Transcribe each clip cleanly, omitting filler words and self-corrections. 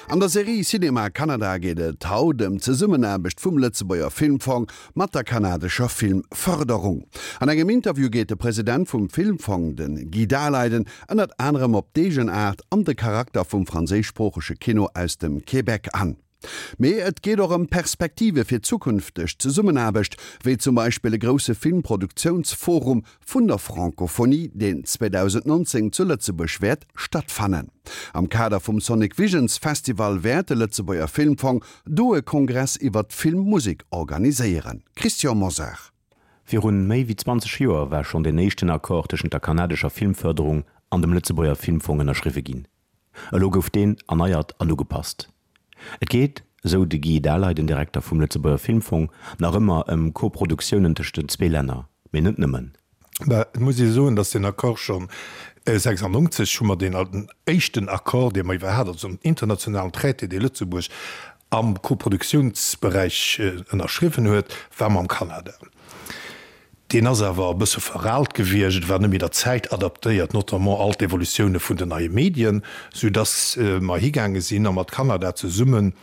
An der Serie Cinéma Canada geet et haut ëm d'Zesummenaarbecht vum Lëtzebuerger Filmfong mat der kanadescher Filmfërderung. An engem Interview geet de President vum Filmfong, de Guy Daleiden, ënnert anerem op d'Eegenaart an de Charakter vum franséischsproochege Kino aus dem Québec an. Mee et geet och ëm Perspektive fir zukünfteg Zesummenaarbecht, wéi zum Beispill e grousse Filmproduktiounsforum vun der Francophonie, deen 2019 zu Lëtzebuerg wäert stattfannen. Am Kader vum Sonic Visions Festival wäert de Lëtzebuerger Filmfong do e Kongress iwwer d'Filmmusek organiséieren. Christian Mosar. Virun méi wéi 20 Joer war schonn deen éischten Accord tëschent der kanadescher Filmfërderung an dem Lëtzebuerger Filmfong ënnerschriwwe ginn. Elo gouf deen erneiert an ugepasst. Et geet, esou de Guy Daleiden, den Direkter vum Lëtzebuerger Filmfong, nach ëmmer ëm Koproduktiounen tëscht den zwee Länner, mee net nëmmen. Mä et muss ee soen, datt deen Accord schonn 96 hu mer deen éischten Accord, dee mer iwwer hat, also en internationalen Traité, dee Lëtzebuerg am Koproduktiounsberäich ënnerschriwwen huet, war mam Kanada. Deen ass awer e bësse veraalt gewiescht, et war net méi der Zäit adaptéiert, notamment all d'Evolutioune vun den neie Medien, soudass mer higaange sinn a mat Kanada zesummen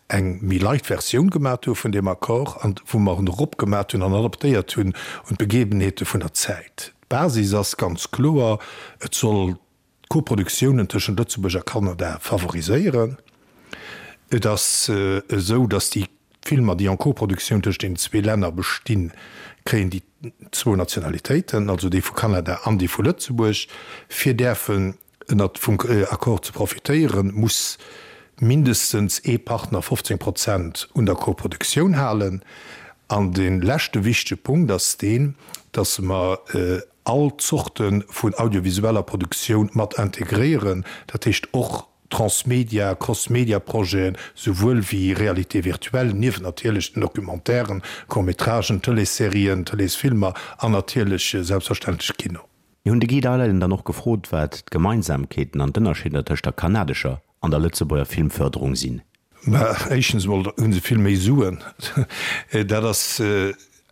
eng méi light Versioun gemat hu vun deem Accord an wou mer en eropgemat hunn an adaptéiert hunn un d'Begebenheete vun der Zäit. D'Basis ass ganz kloer, Et soll d'Koproduktiounen tëschent Lëtzebuerg a Kanada favoriséieren. Et ass esou, datt déi Filmer, déi en Koproduktioun tëscht deenen zwee Länner bestinn, kréien déi zwou Nationalitéiten, also déi vu Kanada an déi vu Lëtzebuerg. Fir däerfen ënnert vum Accord ze profitéieren, muss mindestens ee Partner 15 Prozent un der Koproduktioun halen. An dee leschte wichtege Punkt ass deen, datt mer all Zorte vun audiovisueller Produktioun mat integréieren, dat heescht och Transmedia, Crossmedia-Projeten, souwuel wéi Réalité virtuelle, niewent natierlech den Documentairen, Court-métragen, Tëleesserien, Tëleesfilmer an natierlech selbstverständlech Kino. Mir hunn de Guy Daleiden dann och gefrot, wat d'Gemeinsamkeeten an d'Ënnerscheeder tëscht der kanadescher an der Lëtzebuerger Filmfërderung sinn. Mä éischtens emol hu se vill méi Suen. Dat ass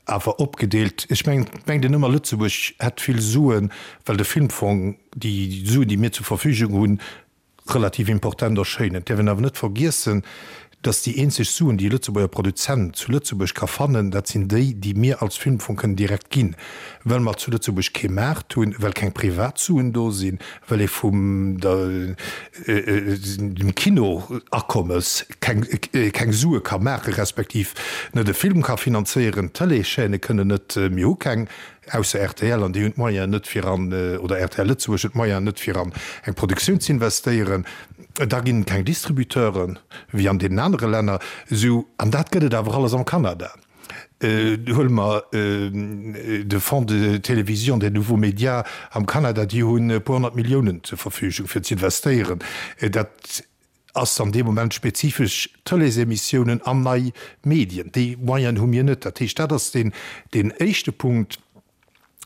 awer opgedeelt. Ech mengen, et mengt een ëmmer, Lëtzebuerg hätt vill Suen, well de Filmfong, déi Suen, déi mir zur Verfügung hunn, relativ important erschéinen. Et däerf een awer net vergiessen, dass déi eenzeg Suen, déi e Lëtzebuerger Produzent zu Lëtzebuerg ka fannen, dat sinn déi, déi mir als Filmfong kënnen direkt ginn, well mer zu Lëtzebuerg kee Maart hunn, well keng Privatsuen do sinn, well ee vum dem Kino-Akommes keng Sue ka maachen, respektiv net e Film ka finanzéieren. D'Tëleeschaîne kënnen net, mir hu keng, ausser rtl, an déi hunn d'Moyenen net fir an, oder rtl Lëtzebuerg huet d'Moyenen net fir an eng Produktioun z'investéieren. Da ginn et keng Distributeuren, wéi an deenen anere Länner. Esou, an dat gëtt et awer alles am Kanada. Huele mer de Fonds de télévision des nouveaux médias am Kanada, déi hunn e puer 100 Milliounen zur Verfügung fir z'investéieren. Dat ass an deem Moment spezifesch Tëleesemissiounen an nei Medien. Déi Moyenen hu mir net. Dat heescht, dat ass deen éischte Punkt.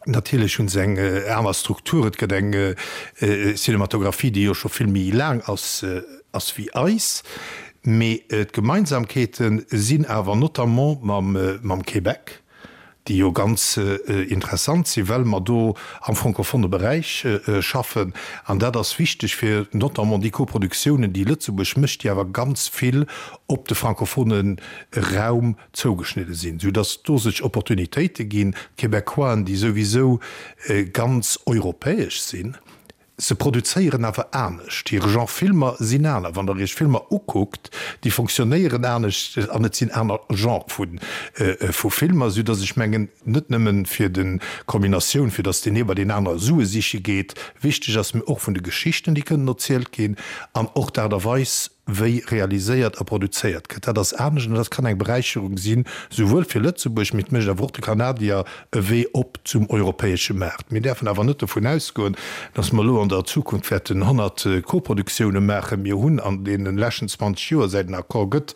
Natierlech hu se eng aner Struktur. Et gëtt eng Cinematographie, déi jo scho vill méi laang ass ass wéi eis. Mee d'Gemeinsamkeete sinn awer notamment mam Québec, déi jo ganz interessant sinn, well mer do am francophone Beräich schaffen. An dat ass wichteg fir notamment déi Koproduktiounen, déi Lëtzebuerg mécht, déi awer ganz vill op de francophone Raum zougeschnidde sinn, sou dass do sech Opportunitéite ginn. D'Québecquoisen, déi souwisou ganz europäesch sinn, se produzéieren awer anescht, hir Genre Filmer sinn aner. Wann Der Iech Filmer ukuckt, déi fonctionnéieren anescht an et sinn aner Genre vu Filmer, sou dass ech mengen, net nëmmen fir de Kombinatioun, fir dass deen ee bei deen anere Sue siche geet, wichteg ass, mee och vun de Geschichten, déi kënnen erzielt ginn an och d'Aart a Weis, wéi realiséiert a produzéiert gëtt, dat ass anescht an dat kann eng Beräicherung sinn, souwuel fir Lëtzebuerg, mee et mécht awer och de Kanadier e Wee op zum europäesche Maart. Mir däerfen awer net dovun ausgoen, dass mer elo an der Zukunft wäerten 100 Koproduktioune maachen. Mir hunn an deene leschten 20 Joer, säit den Accord gëtt,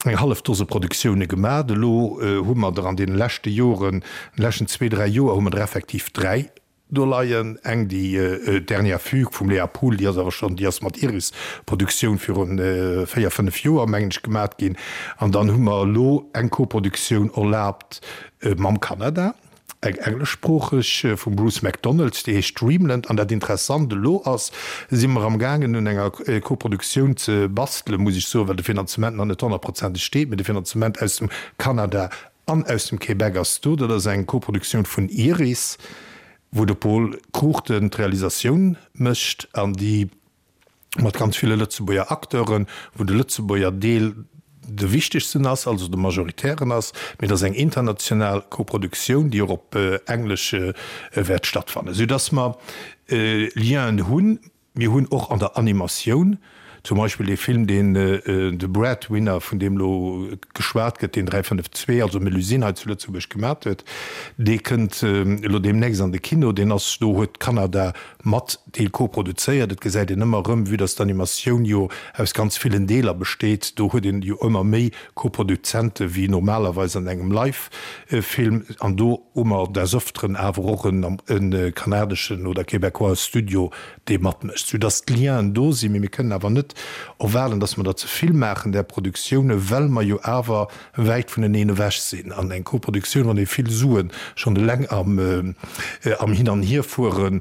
eng hallef Dose Produktioune gemaat. Elo hu mer der an deene leschte Joren, an de leschten zwee, dräi Joer hu mer der effektiv dräi Do leien eng, déi Dernière Fugue vum Léa Pool, déi ass awer schonn, déi ass mat Iris Produktioun viru 4, 5 Joer, mengen ech, gemat ginn. An dann hu mer elo eng Koproduktioun erlaabt mam Kanada. Eng engleschsproocheg vum Bruce McDonald, déi heescht Dreamland. An dat Interessant elo ass, si mer am gaangen un enger Koproduktioun ze bastelen, muss ech soen, well de Finanzement nach net honnertprozenteg steet, mee de Finanzement aus dem Kanada an aus dem Québec ass do. Dat ass eng Koproduktioun vun Iris, wou de Pol Cruchten d'Realisatioun mécht an déi mat ganz ville Lëtzebuerger Acteuren, wou de Lëtzebuerger Deel de wichtegsten ass, also de majoritären ass, mee et ass eng international Koproduktioun, déi och op Englesch wäert stattfannen, soudass mer Lienen hunn. Mir hunn och an der Animatioun zum Beispill dee Film, deen de Breadwinner, vun deem elo geschwat gëtt, deen 352, also Melusine hei zu Lëtzebuerg gemat huet, dee kënnt elo deemnächst an de Kino. Deen ass, do huet Kanada mat Deel koproduzéiert. Et gesäit een ëmmer erëm, vue dass d'Animatioun jo aus ganz villen Deeler besteet, do huet een jo ëmmer méi Koproduzente wéi normalerweis an engem Live-Film. An do hu mer des Öfteren awer och e kanadeschen oder québécois Studio, dee matmécht, soudass d'Lienen do sinn. Mee mir kënnen awer net erwaarden, dass mer der ze vill maachen, där Produktioune, well mer jo awer wäit vuneneen ewech sinn. An eng Koproduktioun, wann ee vill Sue schonn eleng am Hin an Hierfuere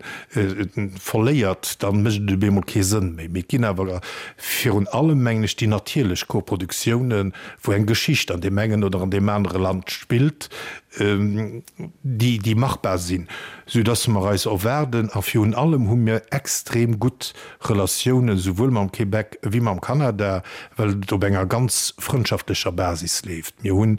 verléiert, da mécht et op eemol kee Sënn méi. Mee et ginn awer virun allem, mengen ech, déi natierlech Koproduktiounen, wou eng Geschicht an deem engen oder an deem anere Land spillt, déi, déi machbar sinn, soudass mer eis erwaarden, a virun allem hu mir extrem gutt Relatiounen souwuel mam Québec ewéi mam Kanada, well et op enger ganz frëndschaftlecher Basis leeft. Mir hu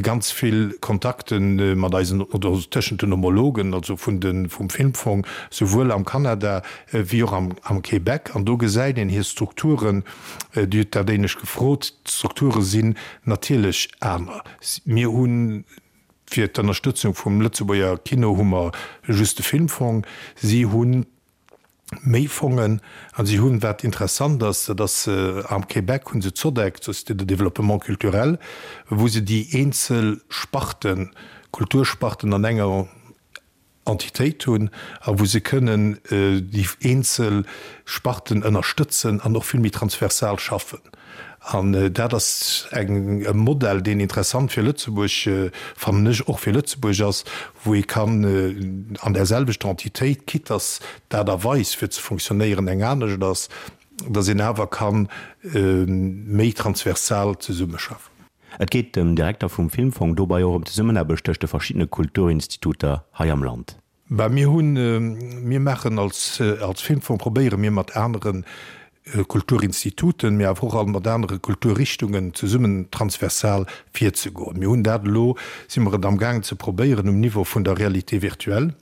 ganz vill Kontakte mat eisen, oder tëschent den Homologen, also vun de, vum Filmfong, souwuel am Kanada ewéi och am, am Québec. An do gesäit een hir Strukturen, Dir hutt dat éinescht gefrot, d'Strukture sinn natierlech aner. Mir hunn fir d'Ënnerstëtzung vum Lëtzebuerger Kino hu mer just de Filmfong. Si hunn méi Fongen an si hunn, wat interessant ass, dat ass am Québec hu se d'SODEC, d'Société de développement culturel, wou se déi eenzel Sparten, Kultursparten an enger Entitéit hunn a wou se kënnen déi eenzel Sparten ënnerstëtzen an och vill méi transversal schaffen. An dat ass eng, e Modell, deen interessant fir Lëtzebuerg, fannen ech, och fir Lëtzebuerg ass, wou ee kann an där selwechter Entitéit, quitte dass d'Aart a Weis fir ze fonctionnéieren eng anescht ass, dass een awer ka méi transversal zesummeschaffen. Et geet dem Direkter vum Filmfong dobei och ëm d'Zesummenaarbecht tëscht de verschiddene Kulturinstituter hei am Land. Bah, mir hunn, mir maachen als, als Filmfong probéiere mir mat anere Kulturinstituten, mee awer och all mat anere Kulturrichtungen zesummen transversal virzegoen. Mir hunn dat elo, si mer et amgaangen ze probéieren um Niveau vun der Réalité virtuelle.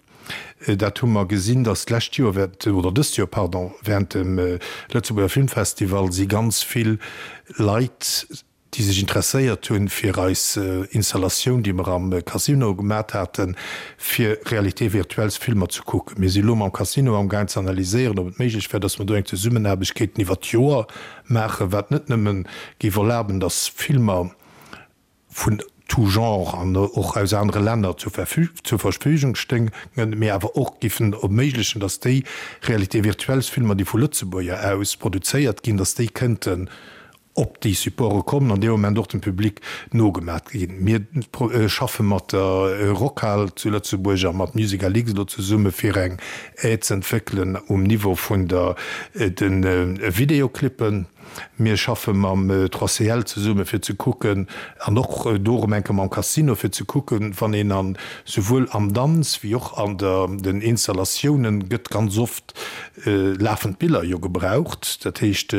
Dat hu mer gesinn, datt d'lescht Joer während, oder dëst Joer, pardon, während dem Lëtzebuerger Filmfestival si ganz vill Leit, déi sech interesséiert hunn fir eis Installatioun, déi mer am Casino gemat haten, fir Réalité virtuelles Filmer ze kucken. Mir si lo mam Casino amgaang ze analyséieren, ob et méiglech wär, dass mer do eng Zesummenaarbecht kéinten iwwert d'Joer maachen, wat net nëmmen géif erlaben, dass Filmer vun tout genre an och aus anere Länner zur Verfügung stéingen, mee awer och géifen erméiglechen, dass déi Réalité virtuelles Filmer, déi vu Lëtzebuerger aus produzéiert ginn, dass déi kënnten op déi Supporte kommen an dee Moment och dem Public nogemat ginn. Mir schaffe mat der Rockhal zu Lëtzebuerg a mat Musical.X elo zesumme fir eng Aide z'entwéckelen um Niveau vun der de Videoclippen. Mir schaffe mam 3CL zesumme fir ze kucken an och do erëm eng Kéier mam Casino fir ze kucken, wann een an souwuel am Danz wéi och an der den Installatiounen gëtt ganz oft lafend Biller jo gebraucht. Dat heescht,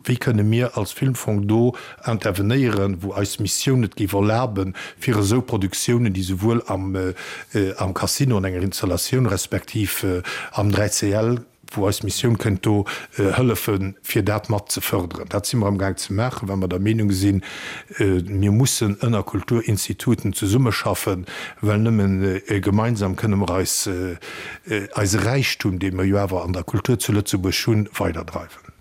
Wéi kënne mir als Filmfong do intervenéieren, wou eis Missioun et géif erlaben, fir esou Produktiounen, déi souwuel am am Casino an enger Installatioun respektiv am 3CL, wou eis Missioun kënnt do hëllefen, fir dat mat ze fërderen? Dat si mer amgaang ze maachen, well mer der Meenung sinn, mir mussen ënner Kulturinstituten zesummeschaffen, well nëmmen gemeinsam kënne mer eis eise Räichtum, dee mer jo awer an der Kultur zu Lëtzebuerg hunn, weiderdreiwen.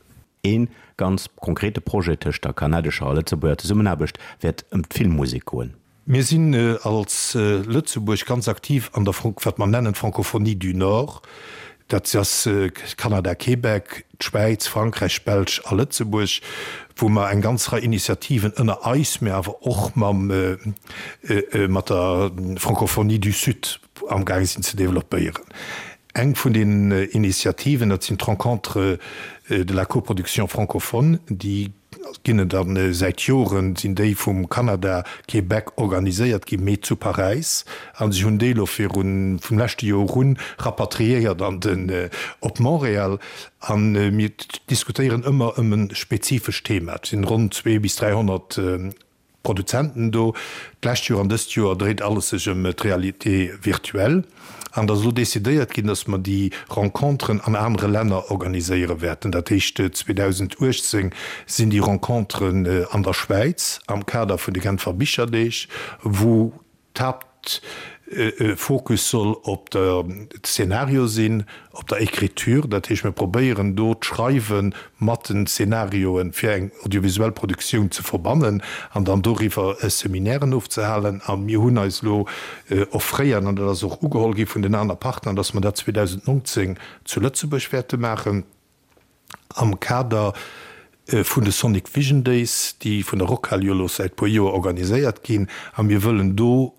Ee ganz konkrete Projet tëscht der kanadescher a Lëtzebuerger Zesummenaarbecht wäert ëm d'Filmmusek goen. Mir sinn als Lëtzebuerg ganz aktiv an der, wat mer nennen, Francophonie du Nord. Dat ass Kanada, Québec, d'Schwäiz, Frankräich, Belsch a Lëtzebuerg, wou mer eng ganz Rei Initiativen ënner eis, mä awer och mam, mat der Francophonie du Sud. amgaange sinn ze developpéieren. Eng vun den Initiativen, dat sinn d'Rencontres de la coproduction francophone, déi ginn et a säit Joren sinn déi vum Kanada, Québec organiséiert ginn, mee zu Paräis. A si hunn déi elo virun, vum leschte Joer un, rapatriéiert an den, op Montréal. A mir diskutéieren ëmmer ëm e spezifescht Thema. Et sinn ronn 2 bis 300 Produzenten do. D'lescht Joer an dëst Joer dréit alles sech ëm d'Réalité virtuelle. An et ass elo decidéiert ginn, datt mer déi Renconteren an anere Länner organiséiere wäerten. Dat heescht, 2018 sinn déi Renconteren an der Schwäiz am Kader vun de Genfer Bicherdeeg, wou d'Haaptfokus soll op der Szenario sinn, op der Écriture. Dat heescht, mir probéieren do d'Schreiwe mat den Szenarioe fir eng audiovisuell Produktioun ze verbannen an dann doriwwer Seminairen ofzehalen. A mir hunn eis elo offréiert, an dat ass och ugeholl gi vun den aner Partner, dass mer dat 2019 zu Lëtzebuerg wäerte maachen. Am Kader vun de Sonic Vision Days, déi vun der Rockhal jo elo säit puer Joer organiséiert ginn, a mir wëllen do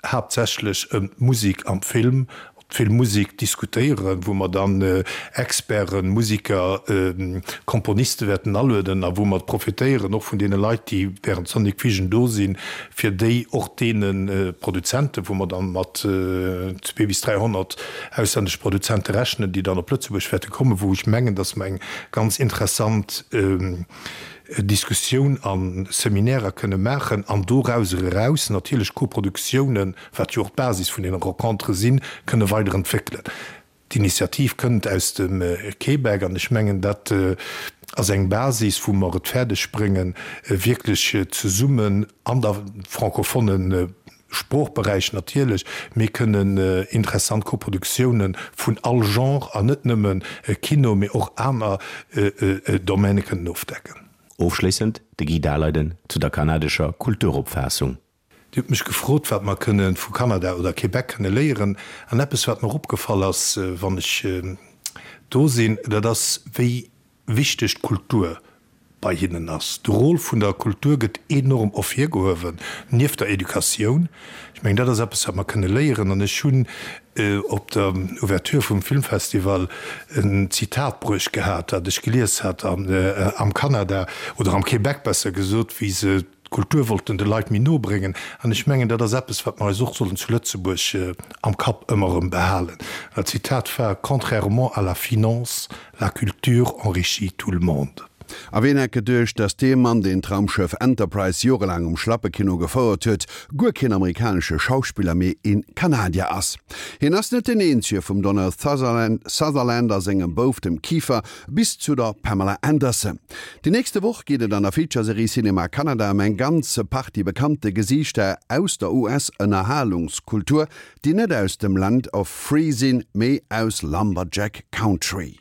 haaptsächlech ëm d'Musek am Film, d'Filmmusek diskutéieren, wou mer dann Experten, Musiker, Komponiste wäerten alueden a wou mer profitéieren och vun deene Leit, déi während Sonic Vision do sinn, fir déi och deene Produzenten, wou mer dann mat 2 bis 300 auslännesche Produzente rechnen, déi dann op Lëtzebuerg wäerte kommen, wou ech mengen, datt mer eng ganz interessant Diskussioun a Seminärer kënne maachen an dorauser eraus natierlech Koproduktiounen, wat jo och d'Basis vun deene Rencontere sinn, kënne weiderentwéckelen. D'Initiativ kënnt aus dem Québec an ech mengen, dat ass eng Basis, wou mer et fäerdeg bréngen, wierklech zesummen an der francophone Sproochberäich natierlech, mee kënnen interessant Koproduktiounen vun all Genre an net nëmme Kino, mee och aner Domaine kënnen ofdecken. Ofschléissend de Guy Daleiden zu der kanadescher Kulturopfaassung. Dir hutt mech gefrot, wat mer kënne vu Kanada oder Québec kënne léieren. An eppes, wat mer opgefall ass, wann ech do sinn, dat ass, wéi wichteg d'Kultur bei hinnen ass. De Rôle vun der Kultur gëtt enorm ervirgehuewen, nieft der Educatioun. Ech mengen, dat ass eppes, wat mer kënne léieren. An ech hunn op der Ouverture vum Filmfestival en Zitat bruecht gehat, dat ech gelies hat am Kanada, oder am Québec besser gesot, wéi se D'Kultur wollten de Leit méi no bréngen. An ech mengen, dat ass eppes, wat mer eis och sollen zu Lëtzebuerg am Kapp ëmmer erëm behalen. Dat Zitat war, Contrairement à la finance, la culture enrichit tout le monde. A ween hätt geduecht, dass dee Mann, deen d'Raumschëff Enterprise jorelaang um Schlappekino gefouert huet, guer keen amerikanesche Schauspiller, mee een Kanadier ass? Hien ass net deen eenzege, vum Donald Sutherland a sengem Bouf, dem Kiefer, bis zu der Pamela Anderson. Déi nächste Woch geet et an der Feature-Serie Cinema Canada ëm eng ganz Partie bekannte Gesiichter aus der US-Ënnerhalungskultur, déi net aus dem Land of Free sinn, mee aus Lumberjack Country.